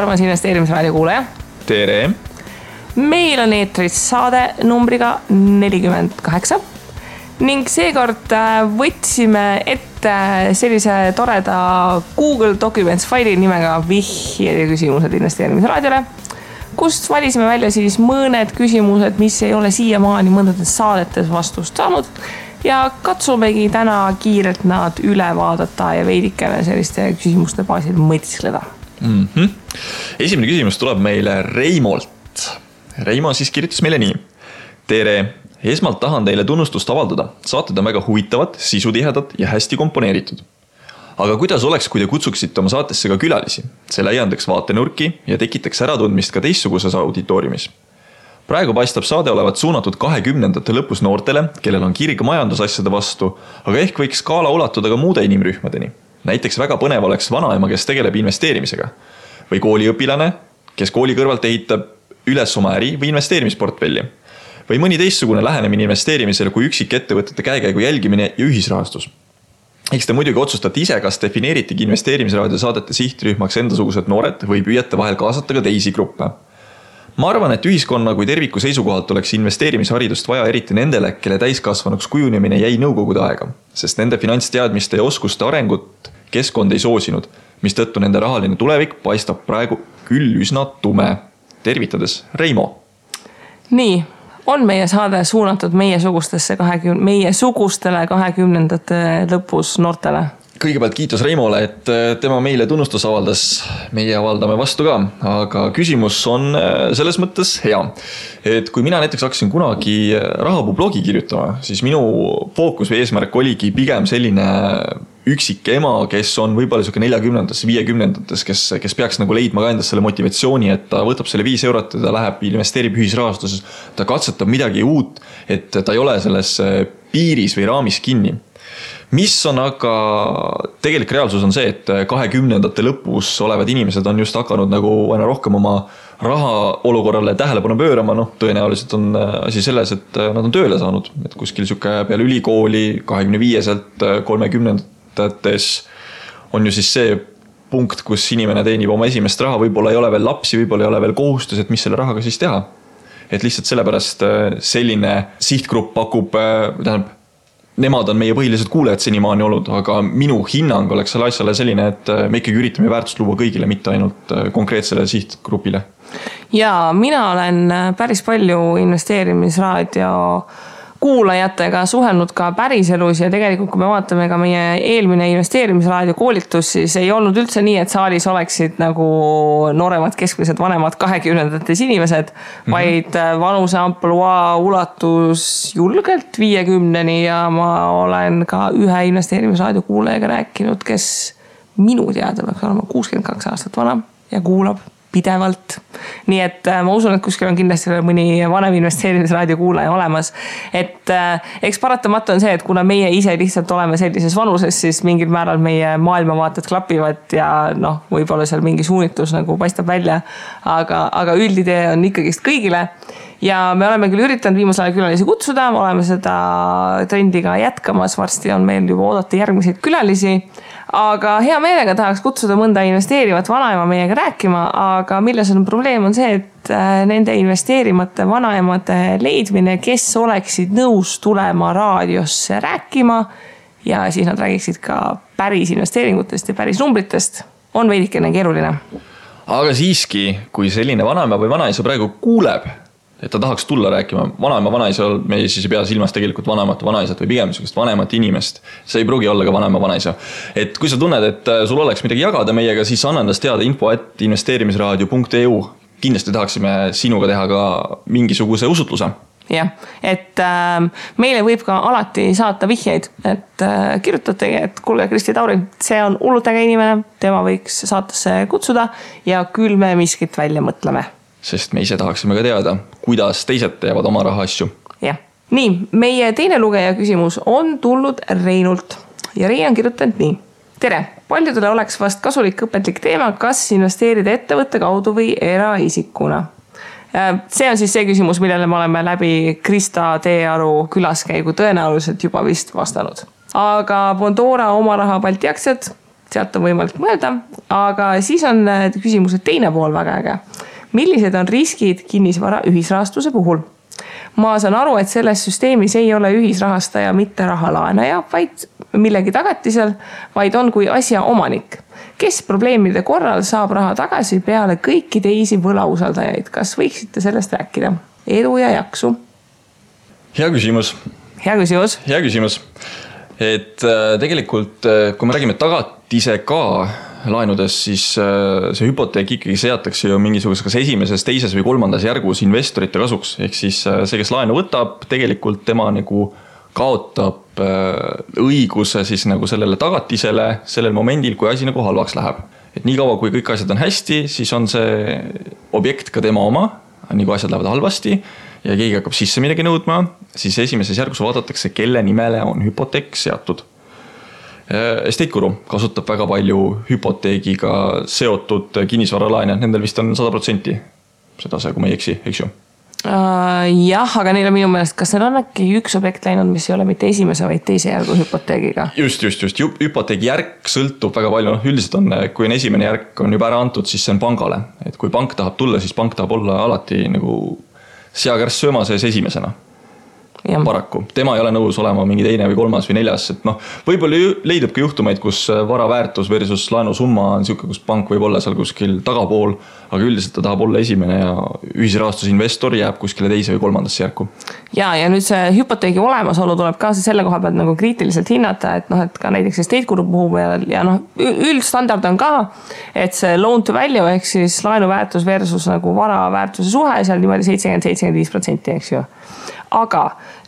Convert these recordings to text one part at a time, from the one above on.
armas investeerimisraadio kuulaja. Tere! Meil on eetris saade numbriga 48 ning seekord võtsime ette sellise toreda Google Documents faili nimega vihjed ja küsimused investeerimisraadiole, kust valisime välja siis mõned küsimused, mis ei ole siiamaani mõndades saadetes vastust saanud ja katsumegi täna kiirelt nad üle vaadata ja veidikene selliste küsimuste baasil mõtiskleda. Esimene küsimus tuleb meile Reimolt. Reimo siis kirjutas meile nii. Tere! Esmalt tahan teile tunnustust avaldada. Saated on väga huvitavad, sisutihedad ja hästi komponeeritud. Aga kuidas oleks, kui te kutsuksite oma saatesse ka külalisi? See laiendaks vaatenurki ja tekitaks äratundmist ka teistsuguses auditooriumis. Praegu paistab saade olevat suunatud 20. lõpus noortele, kellel on kirg majandusasjade vastu, aga ehk võiks skaala ulatuda ka muude inimrühmadeni. Näiteks väga põnev oleks vanaema, kes tegeleb investeerimisega. Või kooliõpilane, kes kooli kõrvalt ehitab üles oma äri või investeerimisportfelli. Või mõni teistsugune lähenemine investeerimisele kui üksik ettevõtete käekäigu jälgimine ja ühisrahastus. Eks te muidugi otsustate ise, kas defineeritigi investeerimisraadio saadete sihtrühmaks endasugused noored või püüate vahel kaasata ka teisi gruppe. Ma arvan, et ühiskonna kui terviku seisukohalt oleks investeerimisharidust vaja eriti nendele, kelle täiskasvanuks kujunemine jäi nõukogude aega, sest nende finantsteadmiste ja oskuste arengut keskkond ei soosinud, mis tõttu nende rahaline tulevik paistab praegu küll üsna tume. Tervitades, Reimo. Nii, on meie saade suunatud meie sugustele 20. lõpus noortele? Kõigepealt kiitus Reimole, et tema meile tunnustus avaldas, meie avaldame vastu ka, aga küsimus on selles mõttes hea. Et kui mina näiteks hakkasin kunagi rahapuu blogi kirjutama, siis minu fookus või eesmärk oligi pigem selline üksik ema, kes on võib-olla 40-ndates, 50-ndates, kes peaks nagu leidma ka endast selle motivatsiooni, et ta võtab selle 5 eurot ja ta läheb investeerib ühisrahastuses, ta katsetab midagi uut, et ta ei ole selles piiris või raamis kinni. Mis on aga tegelik reaalsus on see, et 20. lõpus olevad inimesed on just hakanud nagu aina rohkem oma raha olukorrale tähelepanu pöörama, tõenäoliselt on asi selles, et nad on tööle saanud, et kuskil peale ülikooli 25-selt 30-ndates on ju siis see punkt, kus inimene teenib oma esimest raha, võib-olla ei ole veel lapsi, võib-olla ei ole veel kohustus, et mis selle rahaga siis teha. Et lihtsalt sellepärast selline sihtgrupp pakub, nemad on meie põhilised kuulajad senimaani olnud, aga minu hinnang oleks selle asjale selline, et me ikkagi üritame väärtust luua kõigile, mitte ainult konkreetsele sihtgrupile. Ja mina olen päris palju investeerimisraadio kuulajatega suhelnud ka päriselus ja tegelikult kui me vaatame ka meie eelmine investeerimisraadio koolitus, siis ei olnud üldse nii, et saalis oleksid nagu nooremad, keskmised, vanemad 20-ndates inimesed, vaid vanuse ampluaa ulatus julgelt 50-ni ja ma olen ka ühe investeerimisraadio kuulajaga rääkinud, kes minu teada peaks olema 62 aastat vana ja kuulab pidevalt. Nii et ma usun, et kuskil on kindlasti mõni vanem investeerimisraadio kuulaja olemas. Et eks paratamatu on see, et kuna meie ise lihtsalt oleme sellises vanuses, siis mingil määral meie maailmavaated klapivad ja võib-olla seal mingi suunitlus nagu paistab välja, aga üldidee on ikkagist kõigile. Ja me oleme küll üritanud viimasel ajal külalisi kutsuda, oleme seda trendiga jätkamas, varsti on meil juba oodata järgmiseid külalisi, aga hea meelega tahaks kutsuda mõnda investeerivat vanaema meiega rääkima, aga milles on probleem on see, et nende investeerimate vanaemade leidmine, kes oleksid nõus tulema raadiosse rääkima ja siis nad räägiksid ka päris investeeringutest ja päris numbritest, on veidikene keeruline. Aga siiski, kui selline vanaema või vanaisa praegu kuuleb, et ta tahaks tulla rääkima vanaema vanaisa, me siis ei pea silmas tegelikult vanaisat või pigem vanemat inimest. See ei pruugi olla ka vanaema vanaisa. Et kui sa tunned, et sul oleks midagi jagada meiega, siis anna endast teada info@investeerimisraadio.eu. Kindlasti tahaksime sinuga teha ka mingisuguse usutluse. Jah, et meile võib ka alati saata vihjeid, et kirjutategi, et kuulge Kristi Tauri, see on hullutega inimene, tema võiks saatesse kutsuda ja küll me miskit välja mõtleme. Sest me ise tahaksime ka teada, kuidas teised teevad oma raha asju. Jah. Nii, meie teine lugeja küsimus on tulnud Reinult ja Rein on kirjutanud nii. Tere, paljudele oleks vast kasulik õpetlik teema, kas investeerida ettevõtte kaudu või eraisikuna. See on siis see küsimus, millele me oleme läbi Krista Teearu külaskäigu tõenäoliselt juba vist vastanud. Aga Bondora oma raha Balti aktsiad sealt on võimalik mõelda, aga siis on küsimuse teine pool väga äge. Millised on riskid kinnisvara ühisrahastuse puhul? Ma saan aru, et selles süsteemis ei ole ühisrahastaja mitte rahalaenaja, vaid millegi tagatisel, vaid on kui asja omanik, kes probleemide korral saab raha tagasi peale kõiki teisi võlausaldajaid. Kas võiksite sellest rääkida? Edu ja jaksu. Hea küsimus. Hea küsimus. Hea küsimus. Et tegelikult, kui me räägime tagatise ka laenudes, siis see hüpoteek ikkagi seatakse ju mingisuguses kas esimeses, teises või kolmandas järgus investorite kasuks. Ehk siis see, kes laenu võtab, tegelikult tema nagu kaotab õiguse siis nagu sellele tagatisele sellel momendil, kui asi nagu halvaks läheb. Et nii kaua, kui kõik asjad on hästi, siis on see objekt ka tema oma, nii kui asjad lähevad halvasti ja keegi hakkab sisse midagi nõudma, siis esimeses järgus vaadatakse, kelle nimele on hüpoteek seatud. Estate Guru kasutab väga palju hüpoteegiga seotud kinnisvaralaene, nendel vist on 100% seda see, kui ma ei eksi, eks ju? Jah, aga neil on minu meelest, kas seal on äkki üks objekt läinud, mis ei ole mitte esimese, vaid teise järgu hüpoteegiga? Just. Hüpoteegi järk sõltub väga palju. Üldiselt on, kui on esimene järk on juba ära antud, siis see on pangale. Et kui pank tahab tulla, siis pank tahab olla alati nagu seakärss sööma sees esimesena. Ja. Paraku. Tema ei ole nõus olema mingi teine või kolmas või neljas. Et võib-olla leidub ka juhtumeid, kus vara väärtus versus laenusumma on siuke, kus pank võib olla seal kuskil tagapool, aga üldiselt ta tahab olla esimene ja ühisrahastusinvestor jääb kuskile teise või kolmandasse järku. Ja nüüd see hüpoteegi olemasolu tuleb ka selle koha pealt nagu kriitiliselt hinnata, et ka näiteks Estate Guru puhul ja üldstandard on ka, et see loan to value ehk siis laenu väärtus versus nagu vara väärtuse suhe seal niimoodi 70-75%, eks ju. Aga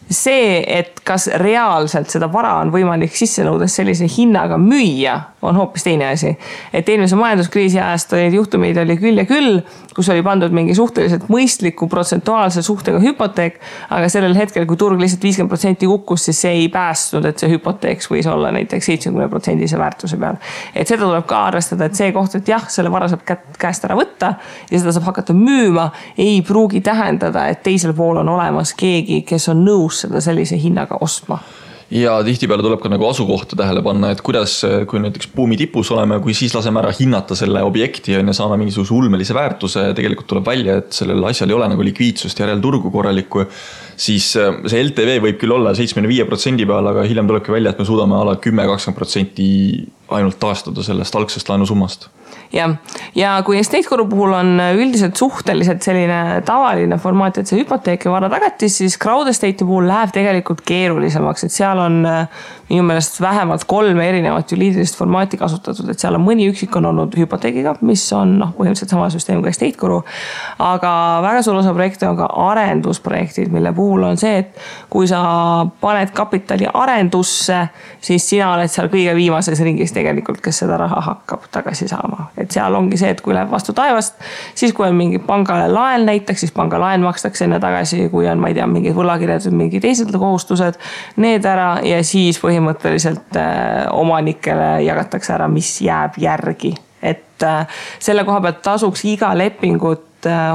see, et kas reaalselt seda vara on võimalik sisse nõudes sellise hinnaga müüa, on hoopis teine asi. Et eelmise majanduskriisi ajast olid juhtumeid oli küll ja küll, kus oli pandud mingi suhteliselt mõistliku protsentuaalse suhtega hüpoteek, aga sellel hetkel, kui turg lihtsalt 50% kukkus, siis see ei päästnud, et see hüpoteeks võis olla näiteks 70% väärtuse peal. Et seda tuleb ka arvestada, et see koht, et jah, selle vara saab käest ära võtta ja seda saab hakata müüma, ei pruugi tähendada, et teisel pool on olemas keegi, kes on nõus seda sellise hinnaga ostma. Ja tihtipeale tuleb ka nagu asukohta tähele panna, et kuidas, kui näiteks buumi tipus oleme, kui siis laseme ära hinnata selle objekti ja saame mingisuguse ulmelise väärtuse, tegelikult tuleb välja, et sellel asjal ei ole nagu likviidsust järel turgu korralikku, siis see LTV võib küll olla 75% peal, aga hiljem tulebki välja, et me suudame ala 10-20% ainult taastada sellest algsest laenusummast. Ja kui Estate Guru puhul on üldiselt suhteliselt selline tavaline formaat, et see hüpoteek ja vara tagatis, siis Crowd Estate'i puhul läheb tegelikult keerulisemaks, et seal on minu meelest vähemalt 3 erinevat juriidilist formaati kasutatud, et seal on mõni üksik on olnud hüpoteegiga, mis on põhimõtteliselt sama süsteem kui Estate Guru, aga väga suur osa projekte on ka arendusprojektid, mille puhul on see, et kui sa paned kapitali arendusse, siis sina oled seal kõige viimases ringis tegelikult, kes seda raha hakkab tagasi saama. Et seal ongi see, et kui läheb vastu taevast, siis kui on mingi pangale laen näiteks, siis panga laen makstakse enne tagasi, kui on, ma ei tea, mingid võlakirjad või mingi teised kohustused, need ära ja siis põhimõtteliselt omanikele jagatakse ära, mis jääb järgi. Et selle koha pealt tasuks iga lepingut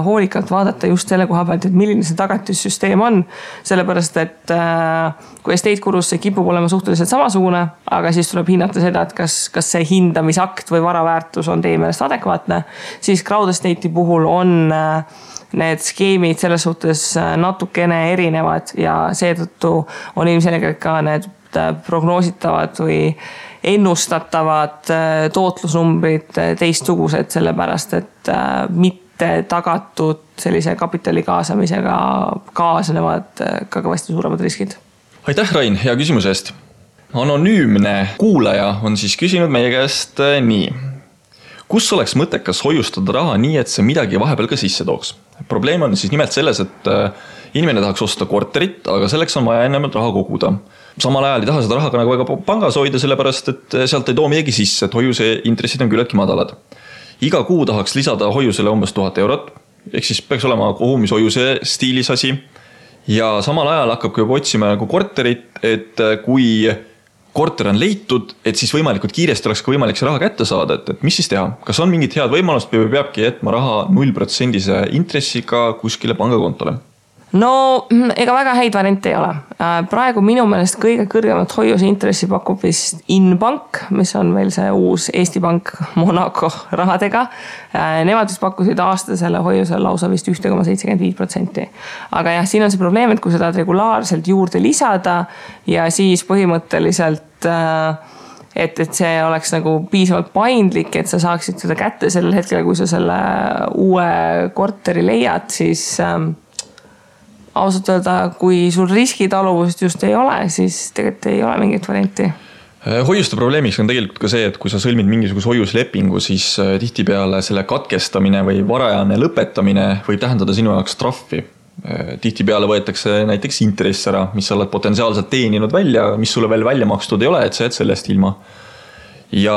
hoolikalt vaadata just selle koha pealt, et milline see tagatissüsteem on. Sellepärast, et kui Estate Gurus see kipub olema suhteliselt samasugune, aga siis tuleb hinnata seda, et kas see hindamisakt või varaväärtus on teie meelest adekvaatne, siis Crowd Estate'i puhul on need skeemid selles suhtes natukene erinevad ja seetõttu on ilmselgelt ka need prognoositavad või ennustatavad tootlusnumbrid teistsugused, sellepärast, et mitte tagatud sellise kapitali kaasamisega kaasnevad ka kõvasti suuremad riskid. Aitäh, Rain, hea küsimuse eest. Anonüümne kuulaja on siis küsinud meie käest nii. Kus oleks mõttekas hoiustada raha nii, et see midagi vahepeal ka sisse tooks? Probleem on siis nimelt selles, et inimene tahaks osta korterit, aga selleks on vaja ennemalt raha koguda. Samal ajal ei taha seda raha ka nagu väga pangas hoida, sellepärast, et sealt ei too midagi sisse, et hoiuse intressid on küllaltki madalad. Iga kuu tahaks lisada hoiusele umbes 1000 eurot, ehk siis peaks olema kogumishoiuse stiilis asi. Ja samal ajal hakkab juba otsima nagu korterit, et kui korter on leitud, et siis võimalikult kiiresti oleks ka võimalik see raha kätte saada, et mis siis teha? Kas on mingid head võimalust või peabki jätma raha 0% intressiga kuskile pangakontole? No ega väga häid variante ei ole. Praegu minu meelest kõige kõrgemat hoiuse intressi pakub vist Inbank, mis on veel see uus Eesti Pank Monaco rahadega. Nemad vist pakkusid aastasele hoiusele lausa vist 1,75%. Aga jah, siin on see probleem, et kui seda regulaarselt juurde lisada ja siis põhimõtteliselt et see oleks nagu piisavalt paindlik, et sa saaksid seda kätte sellel hetkel, kui sa selle uue korteri leiad, siis ausalt öelda, kui sul riskitaluvust just ei ole, siis tegelikult ei ole mingit varianti. Hoiuste probleemiks on tegelikult ka see, et kui sa sõlmid mingisuguse hoiuslepingu, siis tihtipeale selle katkestamine või varajane lõpetamine võib tähendada sinu jaoks trahvi. Tihtipeale võetakse näiteks intress ära, mis sa oled potentsiaalselt teeninud välja, mis sulle veel välja makstud ei ole, et sa jääd sellest ilma. Ja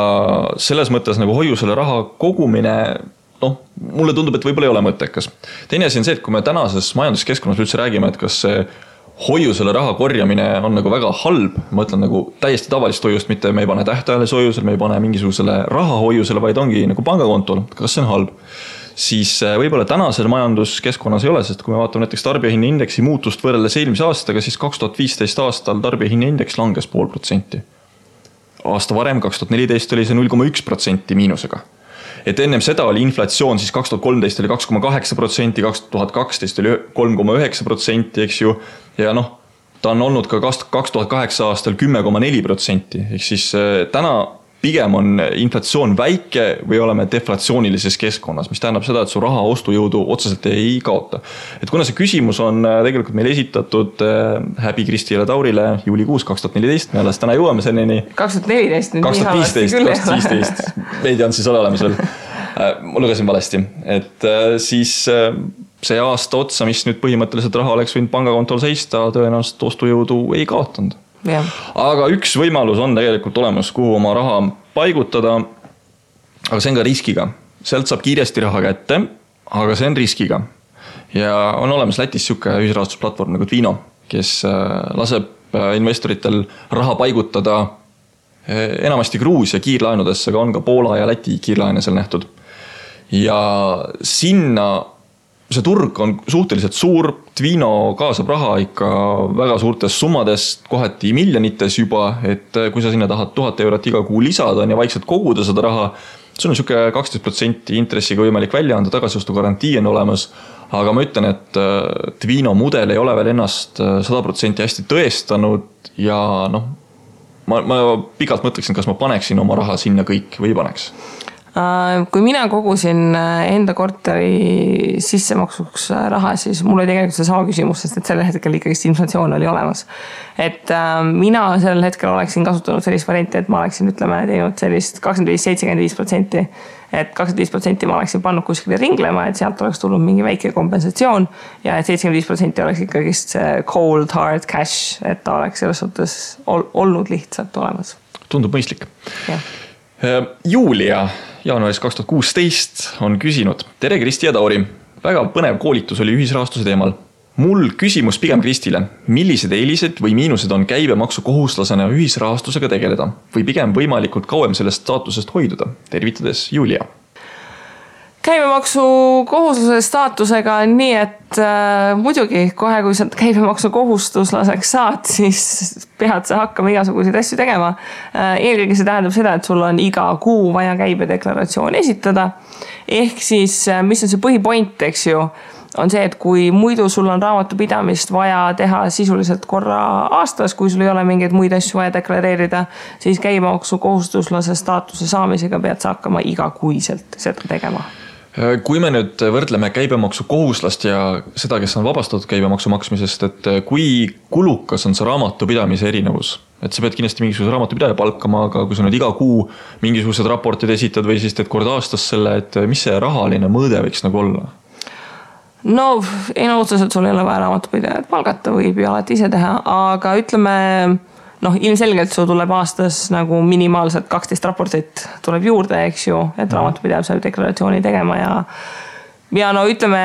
selles mõttes nagu hoiusele raha kogumine mulle tundub, et võib-olla ei ole mõttekas. Teine asi on see, et kui me tänases majanduskeskkonnas üldse räägime, et kas see hoiusele raha korjamine on nagu väga halb, ma ütlen nagu täiesti tavalist hoiust, mitte me ei pane tähtajalise hoiusele, me ei pane mingisugusele raha hoiusele, vaid ongi nagu pangakontol, kas see on halb. Siis võib-olla tänasel majanduskeskkonnas ei ole, sest kui me vaatame näiteks tarbijahinnaindeksi muutust võrreldes eelmise aastaga, siis 2015 aastal tarbijahinnaindeks langes 0,5%. Aasta varem, 2014 oli see 0,1% miinusega. Et ennem seda oli inflatsioon, siis 2013 oli 2,8%, 2012 oli 3,9%, eks ju. Ja ta on olnud ka 2008 aastal 10,4%. Ehk siis täna pigem on inflatsioon väike või oleme deflatsioonilises keskkonnas, mis tähendab seda, et su raha ostujõudu otseselt ei kaota. Et kuna see küsimus on tegelikult meil esitatud Häbi Kristile Taurile juulikuus 2014, me alles täna jõuame selleni. 2014, 2015, veidi on siis olemas veel. Ma lugesin valesti, et siis see aasta otsa, mis nüüd põhimõtteliselt raha oleks võinud pangakontol seista, tõenäoliselt ostujõudu ei kaotanud. Ja. Aga üks võimalus on tegelikult olemas, kuhu oma raha paigutada, aga see on ka riskiga. Sealt saab kiiresti raha kätte, aga see on riskiga. Ja on olemas Lätis siuke ühisrahastusplatvorm nagu Twino, kes laseb investoritel raha paigutada enamasti Gruusia kiirlaenudesse, aga on ka Poola ja Läti kiirlaene seal nähtud. Ja sinna see turg on suhteliselt suur, Twino kaasab raha ikka väga suurtes summades, kohati miljonites juba, et kui sa sinna tahad 1000 eurot iga kuu lisada ja vaikselt koguda seda raha, sul on siuke 12% intressiga võimalik välja anda, tagasiostu garantii on olemas, aga ma ütlen, et Twino mudel ei ole veel ennast 100% hästi tõestanud ja ma pikalt mõtleksin, kas ma paneksin oma raha sinna kõik või paneks. Kui mina kogusin enda korteri sissemaksuks raha, siis mul oli tegelikult see sama küsimus, sest et sellel hetkel ikkagi inflatsioon oli olemas. Et mina sellel hetkel oleksin kasutanud sellist varianti, et ma oleksin teinud sellist 25-75%, et 25% ma oleksin pannud kuskile ringlema, et sealt oleks tulnud mingi väike kompensatsioon ja et 75% oleks ikkagi see cold hard cash, et ta oleks selles suhtes olnud lihtsalt olemas. Tundub mõistlik. Ja. Julia jaanuaris 2016 on küsinud. Tere Kristi ja Tauri. Väga põnev koolitus oli ühisrahastuse teemal. Mul küsimus pigem Kristile. Millised eelised või miinused on käibemaksu kohustuslasena ühisrahastusega tegeleda? Või pigem võimalikult kauem sellest staatusest hoiduda? Tervitades Julia. Käibemaksu kohuslase staatusega on nii, et muidugi kohe, kui sa käibemaksu kohustuslaseks saad, siis pead sa hakkama igasuguseid asju tegema. Eelkõige see tähendab seda, et sul on iga kuu vaja käibedeklaratsioon esitada. Ehk siis, mis on see põhipoint, eks ju, on see, et kui muidu sul on raamatupidamist vaja teha sisuliselt korra aastas, kui sul ei ole mingeid muid asju vaja deklareerida, siis käibemaksu kohustuslase staatuse saamisega pead sa hakkama igakuiselt seda tegema. Kui me nüüd võrdleme käibemaksu kohuslast ja seda, kes on vabastatud käibemaksu maksmisest, et kui kulukas on see raamatupidamise erinevus? Et sa pead kindlasti mingisuguse raamatupidaja palkama, aga kui sa nüüd iga kuu mingisugused raportid esitad või siis teed kord aastas selle, et mis see rahaline mõõde võiks nagu olla? No, ei otseselt sul ei ole vaja raamatupidajat palgata, võib ju alati ise teha, aga ütleme, ilmselgelt sul tuleb aastas nagu minimaalselt 12 raportit tuleb juurde, eks ju, et raamatupidaja saab deklaratsiooni tegema ja ütleme,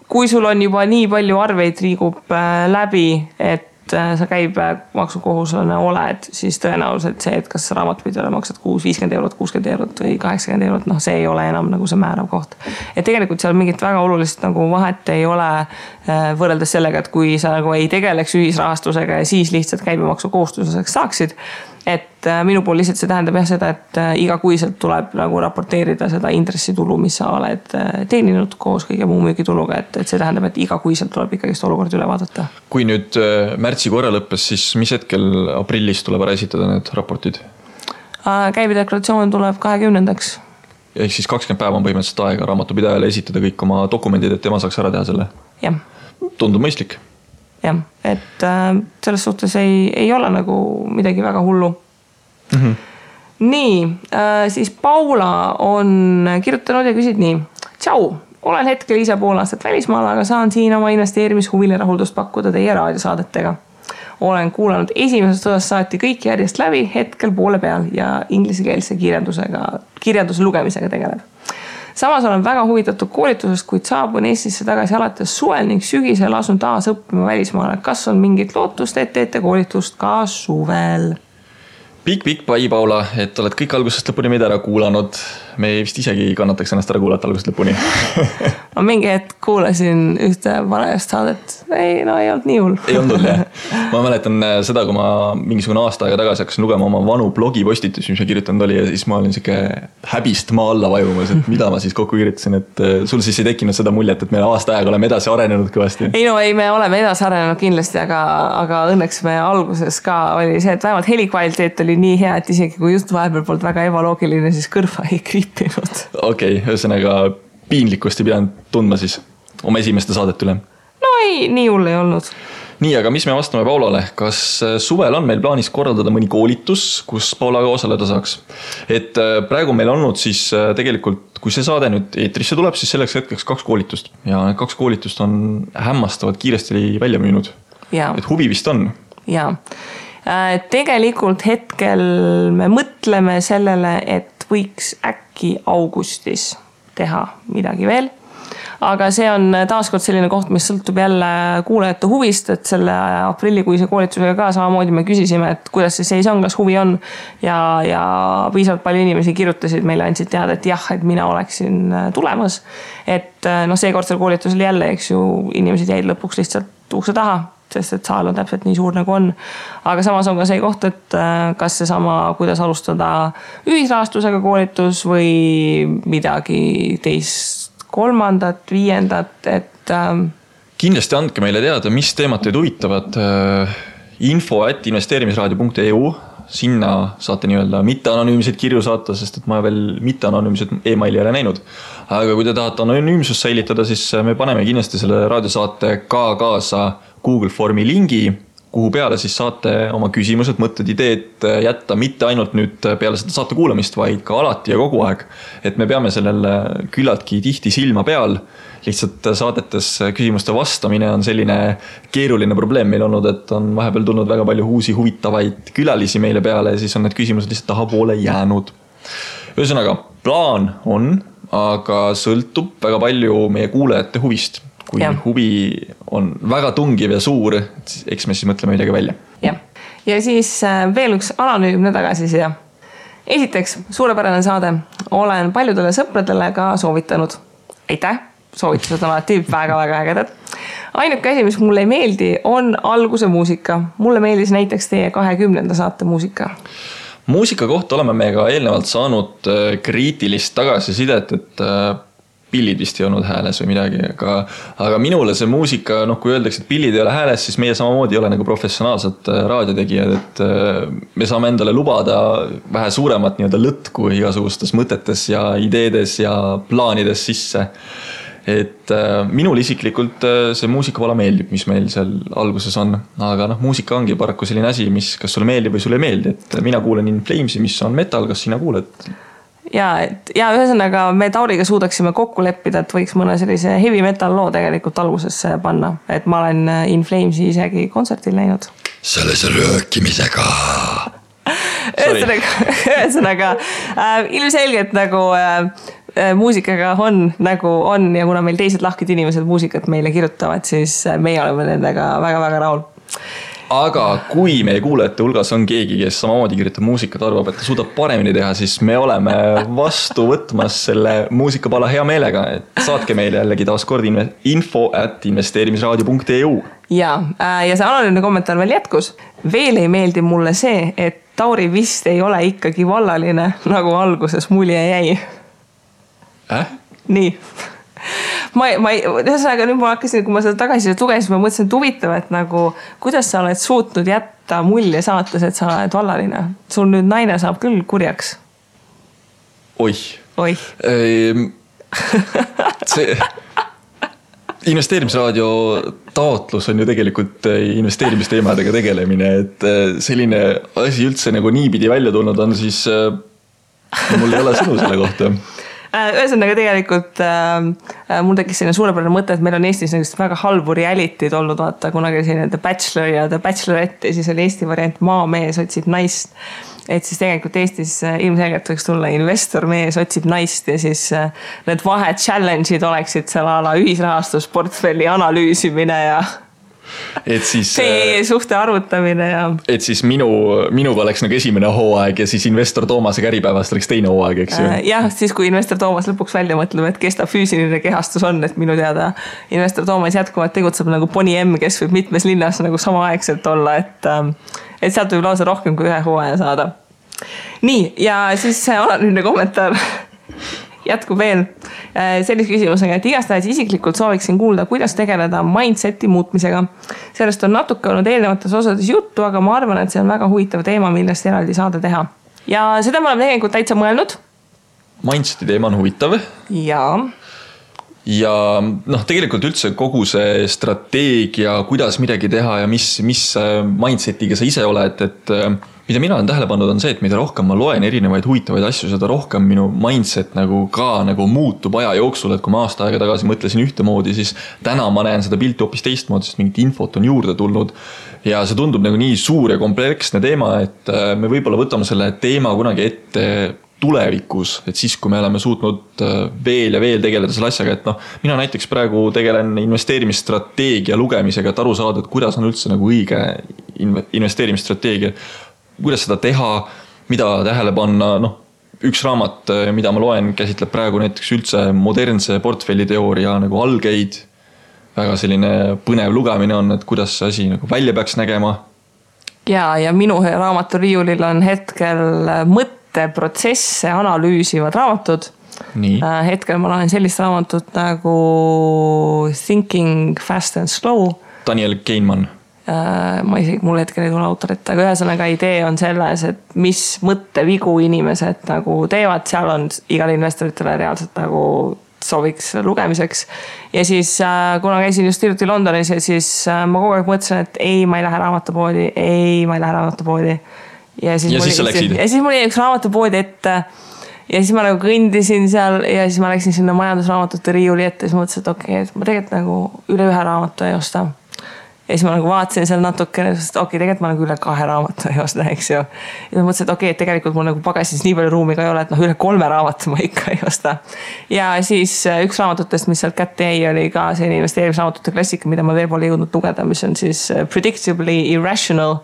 kui sul on juba nii palju arveid liigub läbi, et sa käibemaksukohuslane oled, siis tõenäoliselt see, et kas raamatupidajale maksad 50 eurot, 60 eurot või 80 eurot, noh, see ei ole enam nagu see määrav koht. Et tegelikult seal mingit väga olulist nagu vahet ei ole võrreldes sellega, et kui sa nagu ei tegeleks ühisrahastusega ja siis lihtsalt käibemaksukohustuseks saaksid. Et minu pool lihtsalt see tähendab jah seda, et igakuiselt tuleb nagu raporteerida seda intressitulu, mis sa oled teeninud koos kõige muu müügituluga, et see tähendab, et igakuiselt tuleb ikkagist olukord üle vaadata. Kui nüüd märtsi korra lõppes, siis mis hetkel aprillis tuleb ära esitada need raportid? Käibedeklaratsioon tuleb 20. Ehk siis 20 päeva on põhimõtteliselt aega raamatupidajale esitada kõik oma dokumendid, et tema saaks ära teha selle? Jah. Tundub mõistlik. Jah, et selles suhtes ei ole nagu midagi väga hullu. Nii, siis Paula on kirjutanud ja küsid nii. Tšau, olen hetkel ise pool aastat välismaal, aga saan siin oma investeerimishuvile rahuldust pakkuda teie raadiosaadetega. Olen kuulanud esimesest osast saati kõik järjest läbi, hetkel poole peal ja inglisekeelse kirjanduse lugemisega tegeleb. Samas olen väga huvitatud koolitusest, kuid saabun Eestisse tagasi alates suvel ning sügisel asun taas õppima välismaale. Kas on mingit lootust, et teete koolitust ka suvel? Pikk pai, Paula, et oled kõik algusest lõpuni meid ära kuulanud. Me vist isegi kannataks ennast ära kuulata algusest lõpuni. Ma mingi hetk kuulasin ühte vanajast saadet. Ei olnud nii hull. Ei olnud jah. Ma mäletan seda, kui ma mingisugune aasta aega tagasi hakkasin lugema oma vanu blogipostitusi, mis ma kirjutanud oli ja siis ma olin siuke häbist maa alla vajumas, et mida ma siis kokku kirjutasin, et sul siis ei tekkinud seda muljet, et me aasta aega oleme edasi arenenud kõvasti. Ei, me oleme edasi arenenud kindlasti, aga õnneks me alguses ka oli see, et vähemalt helikvaliteet oli nii hea, et isegi kui just vahepeal poolt väga ebaloogiline, siis kõrva ei kriipinud. Okei, ühesõnaga piinlikkust ei pidanud tundma siis oma esimeste saadet üle. No ei, nii hull ei olnud. Nii, aga mis me vastame Paulale? Kas suvel on meil plaanis korraldada mõni koolitus, kus Paula ka osaleda saaks? Et praegu meil olnud siis tegelikult, kui see saade nüüd eetrisse tuleb, siis selleks hetkeks 2 koolitust. Ja 2 koolitust on hämmastavad kiiresti välja müünud. Ja. Et huvi vist on. Jaa. Tegelikult hetkel me mõtleme sellele, et võiks äkki augustis teha midagi veel. Aga see on taaskord selline koht, mis sõltub jälle kuulajate huvist, et selle aprillikuise koolitusega ka samamoodi me küsisime, et kuidas see seis on, kas huvi on ja piisavalt palju inimesi kirjutasid meile, andsid teada, et jah, et mina oleksin tulemas. Et seekordsel koolitusel jälle, eks ju, inimesed jäid lõpuks lihtsalt ukse taha, sest et saal on täpselt nii suur nagu on. Aga samas on ka see koht, et kas see sama, kuidas alustada ühisrahastusega koolitus või midagi teist, 3., 5., et kindlasti andke meile teada, mis teemad teid huvitavad. info@investeerimisraadio.eu, sinna saate nii-öelda mitte-anonüümseid kirju saata, sest et ma veel mitte-anonüümsed e-maili ei ole näinud. Aga kui te tahate anonüümsust säilitada, siis me paneme kindlasti selle raadiosaate ka kaasa Google Formi lingi, kuhu peale siis saate oma küsimused, mõtted, ideed jätta mitte ainult nüüd peale seda saate kuulamist, vaid ka alati ja kogu aeg. Et me peame sellele küllaltki tihti silma peal. Lihtsalt saadetes küsimuste vastamine on selline keeruline probleem meil olnud, et on vahepeal tulnud väga palju uusi huvitavaid külalisi meile peale ja siis on need küsimused lihtsalt tahapoole jäänud. Ühesõnaga, plaan on, aga sõltub väga palju meie kuulajate huvist. Kui huvi on väga tungiv ja suur, eks me siis mõtleme midagi välja. Ja siis veel üks anonüümne tagasiside. Esiteks, suurepärane saade. Olen paljudele sõpradele ka soovitanud. Aitäh, soovitused on alati väga-väga ägedad. Ainuke asi, mis mulle ei meeldi, on alguse muusika. Mulle meeldis näiteks teie 20. saate muusika. Muusika kohta oleme me ka eelnevalt saanud kriitilist tagasisidet, et pillid vist ei olnud hääles või midagi, aga minule see muusika, kui öeldakse, et pillid ei ole hääles, siis meie samamoodi ei ole nagu professionaalsed raadiotegijad, et me saame endale lubada vähe suuremat nii-öelda lõtku igasugustes mõtetes ja ideedes ja plaanides sisse. Et minul isiklikult see muusikavalla meeldib, mis meil seal alguses on, aga muusika ongi paraku selline asi, mis kas sulle meeldib või sulle ei meeldi, et mina kuulen In Flamesi, mis on metal, kas sina kuuled? Ja ühesõnaga me Tauriga suudaksime kokku leppida, et võiks mõne sellise heavy metal loo tegelikult algusesse panna. Et ma olen In Flamesi isegi kontsertil näinud. Selles röökimisega. Ühesõnaga, ilmselgelt nagu muusikaga on nagu on ja kuna meil teised lahkid inimesed muusikat meile kirjutavad, siis meie oleme nendega väga-väga rahul. aga kui meie kuulajate hulgas on keegi, kes samamoodi kirjutab muusikat, arvab, et ta suudab paremini teha, siis me oleme vastu võtmas selle muusikapala hea meelega, et saatke meile jällegi taaskord info@investeerimisraadio.eu. ja see anonüümne kommentaar veel jätkus. Veel ei meeldi mulle see, et Tauri vist ei ole ikkagi vallaline, nagu alguses mulje jäi. Nii. Ühesõnaga nüüd ma hakkasin, kui ma seda tagasi lugesin, ma mõtlesin, et huvitav, et nagu, kuidas sa oled suutnud jätta mulje saates, et sa oled vallaline. Sul nüüd naine saab küll kurjaks. Oih. See investeerimisraadio taotlus on ju tegelikult investeerimisteemadega tegelemine, et selline asi üldse nagu niipidi välja tulnud on, siis mul ei ole sõnu selle kohta. Ühesõnaga tegelikult mul tekkis selline suurepärane mõte, et meil on Eestis väga halbu reality'd olnud, vaata, kunagi selline The Bachelor ja The Bachelorette ja siis oli Eesti variant Maamees otsib naist. Et siis tegelikult Eestis ilmselgelt võiks tulla investormees otsib naist ja siis need vahed challenge'id oleksid seal ala ühisrahastusportfelli analüüsimine ja et siis suhte arvutamine ja et siis minuga oleks nagu esimene hooaeg ja siis investor Toomase käripäevast oleks teine hooaeg, eks ju? Jah, siis kui investor Toomas lõpuks välja mõtleb, et kes ta füüsiline kehastus on, et minu teada investor Toomas jätkuvalt tegutseb nagu Poni M, kes võib mitmes linnas nagu samaaegselt olla, et sealt võib lausa rohkem kui ühe hooaja saada. Nii, ja siis anonüümne kommentaar jätkub veel sellise küsimusega, et igastahes isiklikult sooviksin kuulda, kuidas tegeleda mindseti muutmisega. Sellest on natuke olnud eelnevates osades juttu, aga ma arvan, et see on väga huvitav teema, millest eraldi saada teha. Ja seda me oleme tegelikult täitsa mõelnud. Mindseti teema on huvitav. Ja tegelikult üldse kogu see strateegia, kuidas midagi teha ja mis mindsetiga sa ise oled, et mida mina olen tähele pannud on see, et mida rohkem ma loen erinevaid huvitavaid asju, seda rohkem minu mindset nagu muutub aja jooksul, et kui ma aasta aega tagasi mõtlesin ühtemoodi, siis täna ma näen seda pilti hoopis teistmoodi, sest mingit infot on juurde tulnud ja see tundub nagu nii suur ja kompleksne teema, et me võib-olla võtame selle teema kunagi ette tulevikus, et siis kui me oleme suutnud veel ja veel tegeleda selle asjaga, et mina näiteks praegu tegelen investeerimisstrateegia lugemisega, et aru saada, et kuidas on üldse nagu õige investeerimisstrateegia, kuidas seda teha, mida tähele panna, üks raamat, mida ma loen, käsitleb praegu näiteks üldse modernse portfelliteooria nagu algeid, väga selline põnev lugemine on, et kuidas see asi nagu välja peaks nägema. Ja minu raamatu riiulil on hetkel mõtteprotsesse analüüsivad raamatud. Nii. Hetkel ma loen sellist raamatut nagu Thinking Fast and Slow. Daniel Kahneman. Mul hetkel ei tule autorit, aga ühesõnaga idee on selles, et mis mõttevigu inimesed nagu teevad, seal on igal investoritele reaalselt nagu sooviks lugemiseks. Ja siis kuna käisin just hiljuti Londonis ja siis ma kogu aeg mõtlesin, et ma ei lähe raamatupoodi. Ja siis mul jäi üks raamatupoodi ette ja siis ma nagu kõndisin seal ja siis ma läksin sinna majandusraamatute riiuli ette ja siis mõtlesin, et okei, et ma tegelikult nagu üle ühe raamatu ei osta. Ja siis ma nagu vaatasin seal natukene, sest tegelikult ma nagu üle 2 raamatu ei osta, eks ju. Ja ma mõtlesin, et et tegelikult mul nagu pagasis nii palju ruumi ka ei ole, et üle 3 raamatu ma ikka ei osta. Ja siis üks raamatutest, mis sealt kätte jäi, oli ka selline investeerimisraamatute klassika, mida ma veel pole jõudnud lugeda, mis on siis Predictably Irrational,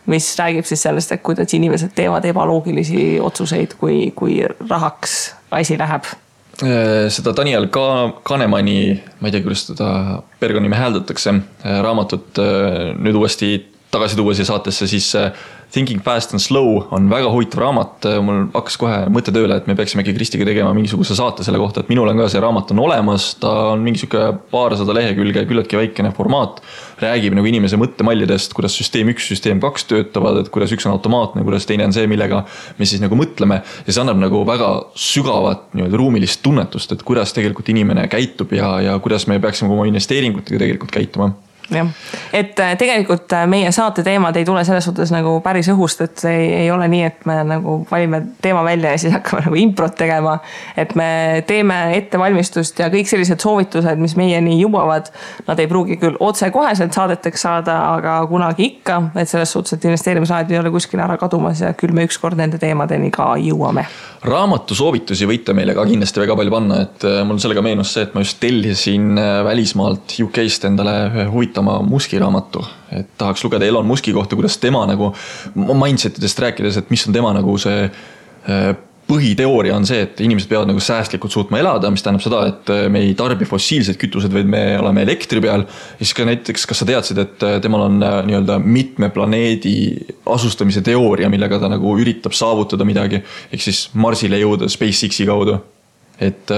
mis räägib siis sellest, et kuidas inimesed teevad ebaloogilisi otsuseid, kui rahaks asi läheb. Seda Daniel Kahnemani, ma ei tea, kuidas teda pergonime hääldatakse, raamatut nüüd uuesti tagasi tuua siia saatesse, siis Thinking Fast and Slow on väga huvitav raamat. Mul hakkas kohe mõte tööle, et me peaksime Kristiga tegema mingisuguse saate selle kohta, et minul on ka see raamat on olemas, ta on mingisugune 200 lehekülge, küllaltki väikene formaat, räägib nagu inimese mõttemallidest, kuidas süsteem 1, süsteem 2 töötavad, et kuidas üks on automaatne, kuidas teine on see, millega me siis nagu mõtleme ja see annab nagu väga sügavat ruumilist tunnetust, et kuidas tegelikult inimene käitub ja kuidas me peaksime oma investeeringutega tegelikult käituma. jah. Et tegelikult meie saate teemad ei tule selles suhtes nagu päris õhust, et ei ole nii, et me nagu valime teema välja ja siis hakkame nagu improt tegema, et me teeme ettevalmistust ja kõik sellised soovitused, mis meieni jõuavad, nad ei pruugi küll otse koheselt saadeteks saada, aga kunagi ikka, et selles suhtes, et investeerimisraadio ei ole kuskil ära kadumas ja küll me ükskord nende teemadeni ka jõuame. Raamatu soovitusi võite meile ka kindlasti väga palju panna, et mul sellega meenus see, et ma just tellisin välismaalt UK-st endale huvitav kirjutama Muski raamatu, et tahaks lugeda Elon Muski kohta, kuidas tema nagu mindsetidest rääkides, et mis on tema nagu see põhiteooria on see, et inimesed peavad nagu säästlikult suutma elada, mis tähendab seda, et me ei tarbi fossiilsed kütused, vaid me oleme elektri peal. Ja siis ka näiteks, kas sa teadsid, et temal on nii-öelda mitme planeedi asustamise teooria, millega ta nagu üritab saavutada midagi, ehk siis Marsile jõuda SpaceXi kaudu. Et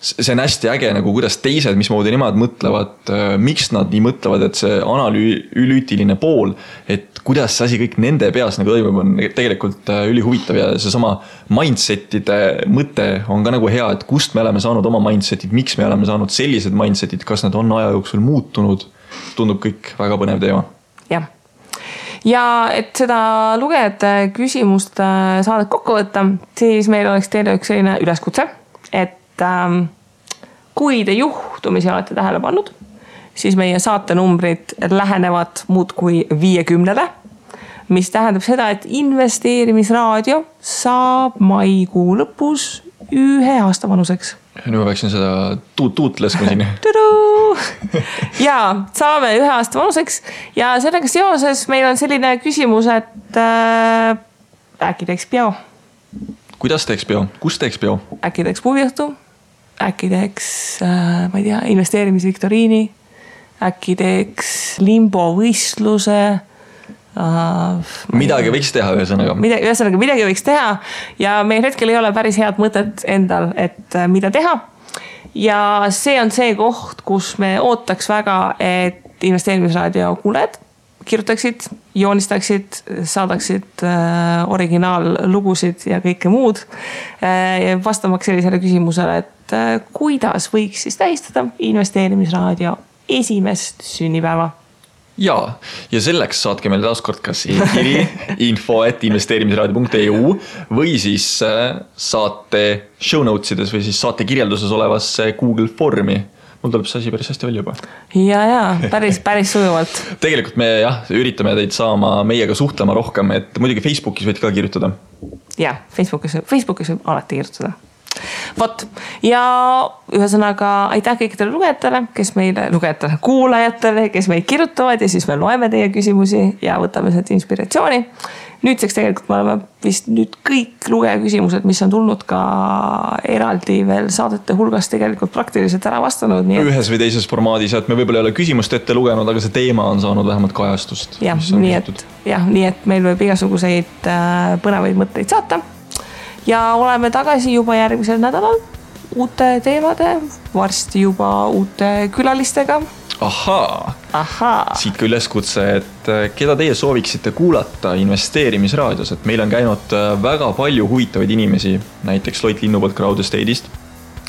see on hästi äge nagu kuidas teised, mismoodi nemad mõtlevad, miks nad nii mõtlevad, et see analüütiline pool, et kuidas see asi kõik nende peas nagu toimub, on tegelikult ülihuvitav ja see sama mindsetide mõte on ka nagu hea, et kust me oleme saanud oma mindsetid, miks me oleme saanud sellised mindsetid, kas nad on aja jooksul muutunud, tundub kõik väga põnev teema. Jah. Ja et seda lugejate küsimust saadet kokku võtta, siis meil oleks teile üks selline üleskutse, et kui te juhtumisi olete tähele pannud, siis meie saatenumbrid lähenevad muudkui 50, mis tähendab seda, et investeerimisraadio saab maikuu lõpus 1 aasta vanuseks. Nüüd ma peaksin seda tuutleskma siin. Ja saame 1 aasta vanuseks ja sellega seoses meil on selline küsimus, et äkki teeks peo. Kuidas teeks peo? Kus teeks peo? Äkki teeks puviõhtu, äkki teeks, ma ei tea, investeerimisviktoriini, äkki teeks limbovõistluse. Midagi võiks teha ühesõnaga. Midagi võiks teha ja meil hetkel ei ole päris head mõtet endal, et mida teha. Ja see on see koht, kus me ootaks väga, et investeerimisraadio kuuled kirjutaksid, joonistaksid, saadaksid originaallugusid ja kõike muud. Vastamaks sellisele küsimusele, et kuidas võiks siis tähistada investeerimisraadio 1. sünnipäeva. Ja selleks saatke meile taaskord kas e-kiri info@investeerimisraadio.eu või siis saate show notesides või siis saate kirjelduses olevasse Google Formi. Mul tuleb see asi päris hästi välja juba. Ja, päris sujuvalt. Tegelikult me üritame teid saama meiega suhtlema rohkem, et muidugi Facebookis võid ka kirjutada. Ja, Facebookis võib alati kirjutada. Vot, ja ühesõnaga aitäh kõikidele kuulajatele, kes meid kirjutavad ja siis me loeme teie küsimusi ja võtame sealt inspiratsiooni. Nüüdseks tegelikult me oleme vist nüüd kõik lugeja küsimused, mis on tulnud ka eraldi veel saadete hulgas tegelikult praktiliselt ära vastanud. Ühes või teises formaadis, et me võib-olla ei ole küsimust ette lugenud, aga see teema on saanud vähemalt kajastust. Nii et meil võib igasuguseid põnevaid mõtteid saata. Ja oleme tagasi juba järgmisel nädalal uute teemade, varsti juba uute külalistega. Ahaa. Siit ka üleskutse, et keda teie sooviksite kuulata investeerimisraadios, et meil on käinud väga palju huvitavaid inimesi, näiteks Loit Linnupoolt Crowd Estate'ist,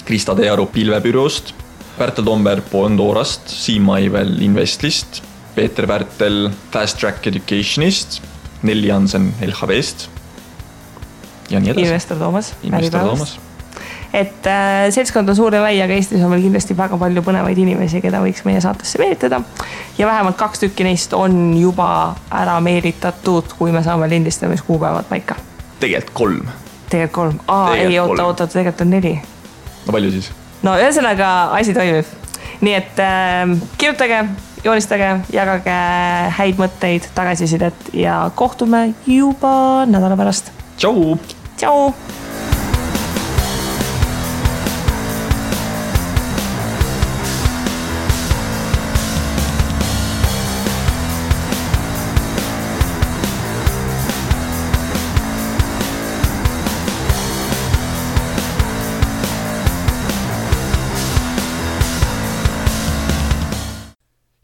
Krista Tearu Pilvebüroost, Pärtel Tomberg Pondorast, Siim Maivel Investlist, Peeter Pärtel Fast Track Educationist, Nelli Jansen LHV-st ja nii edasi. Investor Toomas. Et seltskond on suur ja lai, aga Eestis on meil kindlasti väga palju põnevaid inimesi, keda võiks meie saatesse meelitada. Ja vähemalt 2 tükki neist on juba ära meelitatud, kui me saame lindistamiskuupäevad paika. Tegelikult 3. Ei, oota, tegelikult on 4. No palju siis? No ühesõnaga asi toimib. Nii et kirjutage, joonistage, jagage häid mõtteid, tagasisidet ja kohtume juba nädala pärast. Tšau!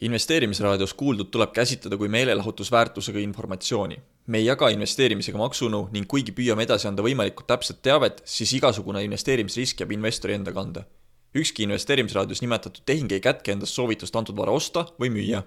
Investeerimisraadios kuuldud tuleb käsitleda kui meelelahutusväärtusega informatsiooni. Me ei jaga investeerimisega maksunu ning kuigi püüame edasi anda võimalikult täpset teavet, siis igasugune investeerimisrisk jääb investori enda kanda. Ükski investeerimisraadios nimetatud tehing ei kätke endast soovitust antud vara osta või müüa.